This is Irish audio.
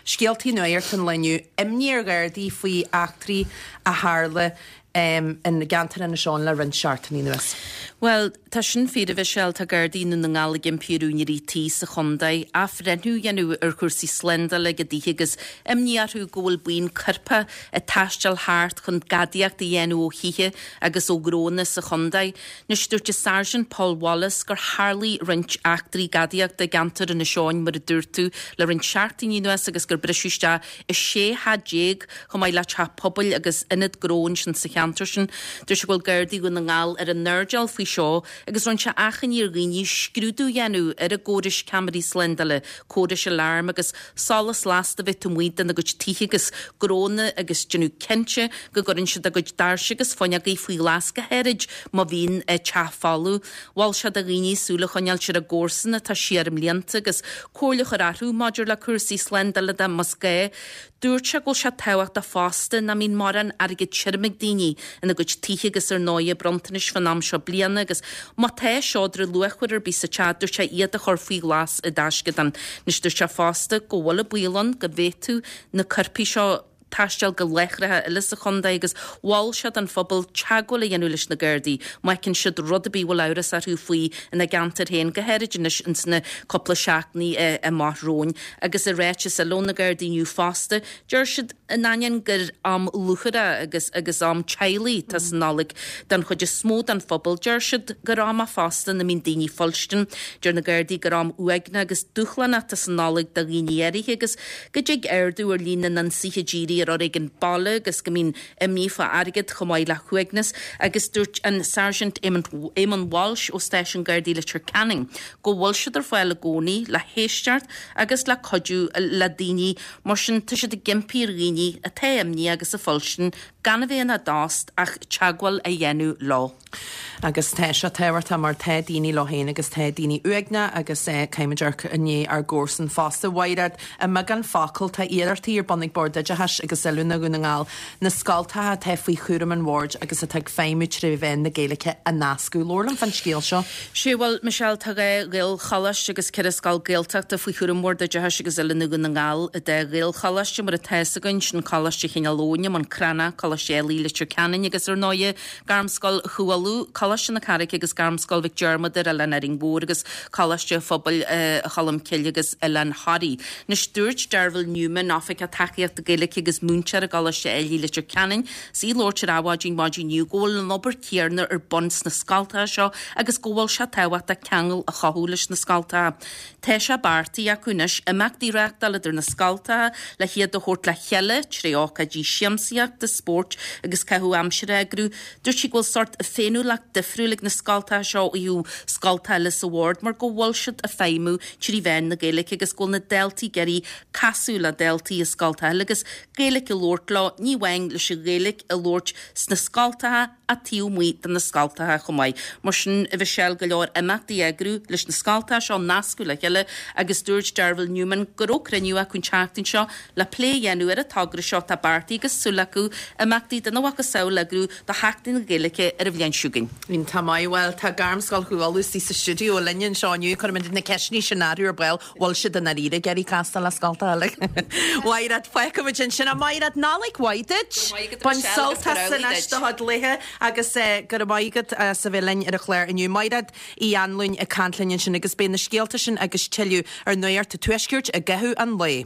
Scéaltaí nuacht an lae inniu, imní ar Ghardaí faoi eachtraí a tharla i gceantar Inis Eoghain le roinnt seachtainí anuas. Bhuel, tá sin fíor, a Mhichelle, tá Gardaí i nDún na nGall ag impí ar úinéirí tí sa chontae athbhreithniú a dhéanamh ar chúrsaí slándála ag a dtithe agus imní orthu go bhfuil buíon coirpeach ag taisteal thart chun gadaíocht a dhéanamh ó thithe agus ó ghnónna sa chontae. Anois, dúirt an Sáirsint Paul Wallace gur tharlaigh roinnt eachtraí gadaíochta i gceantar Inis Eoghain, mar a dúirt tú, le roinnt seachtainí anuas agus gur briseadh isteach i 16 theach chomh maith le teach pobail agus ionad gnó ansin sa cheantar sin. Dúirt sé go bhfuil Gardaí Dhún na nGall ar a n-airdeall faoi seo agus rinne sé achainí ar dhaoine scrúdú a dhéanamh ar a gcórais ceamaraí slándála, córais aláirm agus solas lasta a bheith taobh amuigh dena gcuid tithe agus gnónna agus déanamh cinnte go gcuireann siad a gcuid doirse agus fuinneogaí faoi ghlas go háirid má bhíonn teach folamh. Mhol sé do dhaoine súil a choinneáilt ar a gcomharsana atá siar i mblianta agus comhairle a chur orthu maidir le cúrsaí slándála de más gá. Dúirt sé go bhfuil sé tábhachtach fosta nach mbíonn mórán airgead tirim ag daoine ina gcuid tithe agus ar ndóighe bronntanais fán am seo bliana agus má tá seodra luachmhar ar bith sa teach dúirt sé iad a chur faoi ghlas i dtaisceadán. Anois dúirt sé fosta go bhfuil an baol ann go bhféadfadh na coirpigh seo taisteal go láithreacha eile sa chontae agus mhol sé don phobal teagmháil a dhéanamh leis na Gardaí má fheiceann siad rud ar bith a bhfuil amhras orthu faoi ina gceantar féin, go háirid anois ins na cúpla seachtainí amach romhainn. Agus i ráiteas eile ó na Gardaí inniu fosta, deir siad, in ainneoin gur am lúcháire agus agus am teaghlaigh atá sa Nollaig don chuid is mó den phobal, deir siad gur am é fosta ina mbíonn daoine fuilstin. Deir na Gardaí gur am uaigneach agus dúshlánach atá sa Nollaig do dhaoine áirithe agus go dtig ardú ar líon na n-ionsaithe dírí ar fhoréigean baile agus go mbíonn imní fá airgead chomh maith le huaigneas agus dúirt an Sáirsint Éamonn Walsh ó Stáisiún Gardaí Leitir Ceanainn go bhfuil siad ar fáil i gcónaí le héisteacht agus le cuidiú le daoine mar sin tá siad ag impí ar dhaoine atá imníoch agus ag fuilstin gan a bheith ina dtost ach teagmháil a dhéanamh leo. Agus tá sé tábhachtach mar tá daoine leo féin agus tá daoine uaigneach agus caithfimid amharc i ndiaidh ár gcomharsan fosta. Mhairéad, i mbeagán focal, tá iarrachtaí ar bun ag Bord Oideachais agus Oiliúna Dhún na nGall na scoltacha atá faoi chúram an Bhoird agus atá ag feidhmiú tré mheán na Gaeilge a nascadh. Labhair liom fán scéal seo. Sea, bhuel, Michelle, tá 2 Ghaelcholáiste agus 4 scoil Gaeltachta faoi chúram Bhord Oideachais agus Oiliúna Dhún na nGall. An dá Ghaelcholáiste, mar atá fhios againn, sin Coláiste Chineál Eoghain i mBun Cranncha, Coláiste Ailigh Leitir Ceanainn agus, ar ndóighe, Gairmscoil Chú Uladh, Coláiste na Carraice agus Gairmscoil Mhic Diarmada ar Oileán Árainn Mhór agus Coláiste Phobail Cholm Cille agus Oileán Thoraí. Anois, dúirt Derville Newman, Oifigeach Tacaíochta Gaeilge agus múinteoir i gColáiste Ailigh Leitir Ceanainn, is í ag labhairt ar Adhmhaidin maidin inniu go bhfuil an obair chéanna ar bun sna scoltacha seo agus go bhfuil sé tábhachtach ceangal a chothú leis na scoltacha. Tá sé beartaithe acu anois imeachtaí a reáchtáil idir na scoltacha le hiad a thabhairt le chéile tré ócáidí siamsaíochta, spóirt agus caitheamh aimsire a eagrú. Dúirt sí go bhfuil sórt féiniúlacht difriúil ag na scoltacha seo ó thaobh scoltacha eile sa bhord mar go bhfuil siad ag feidhmiú trí mheán na Gaeilge agus go bhfuil na daltaí ag iarraidh casadh le daltaí i scoltacha eile agus Gaeilge a labhairt leo, ní amháin leis an Ghaeilge a labhairt sna scoltacha ach taobh amuigh de na scoltacha chomh maith. Mar sin, a Mhichelle, go leor imeachtaí a eagrú leis na scoltacha seo a nascadh le chéile agus dúirt Derville Newman go raibh cruinniú acu an tseachtain seo le plé a dhéanamh ar an togra seo atá beartaithe agus súil acu imeachtaí dena mhacasamhail a eagrú do Sheachtain na Gaeilge ar an bhliain seo chugainn. Iontach maith. Bhuel, tá Gairmscoil Chú Uladh istigh sa stiúideo linn anseo inniu. Cuirfimid na ceisteanna sin orthu ar ball. Bhfuil siad i ndáiríre ag iarraidh castáil le scoltacha eile? Mhairéad, fágfaimid ansin. A Mhairéad, Nollaig mhaith duit! Bain sult as anois do chuid laetha agus go raibh maith agat as a bheith linn ar an chlár inniu. Mairéad Uí Anluain ag caint linn ansin agus beidh na scéalta sin agus tuilleadh ar Nuacht an Tuaiscirt i gcaitheamh an lae.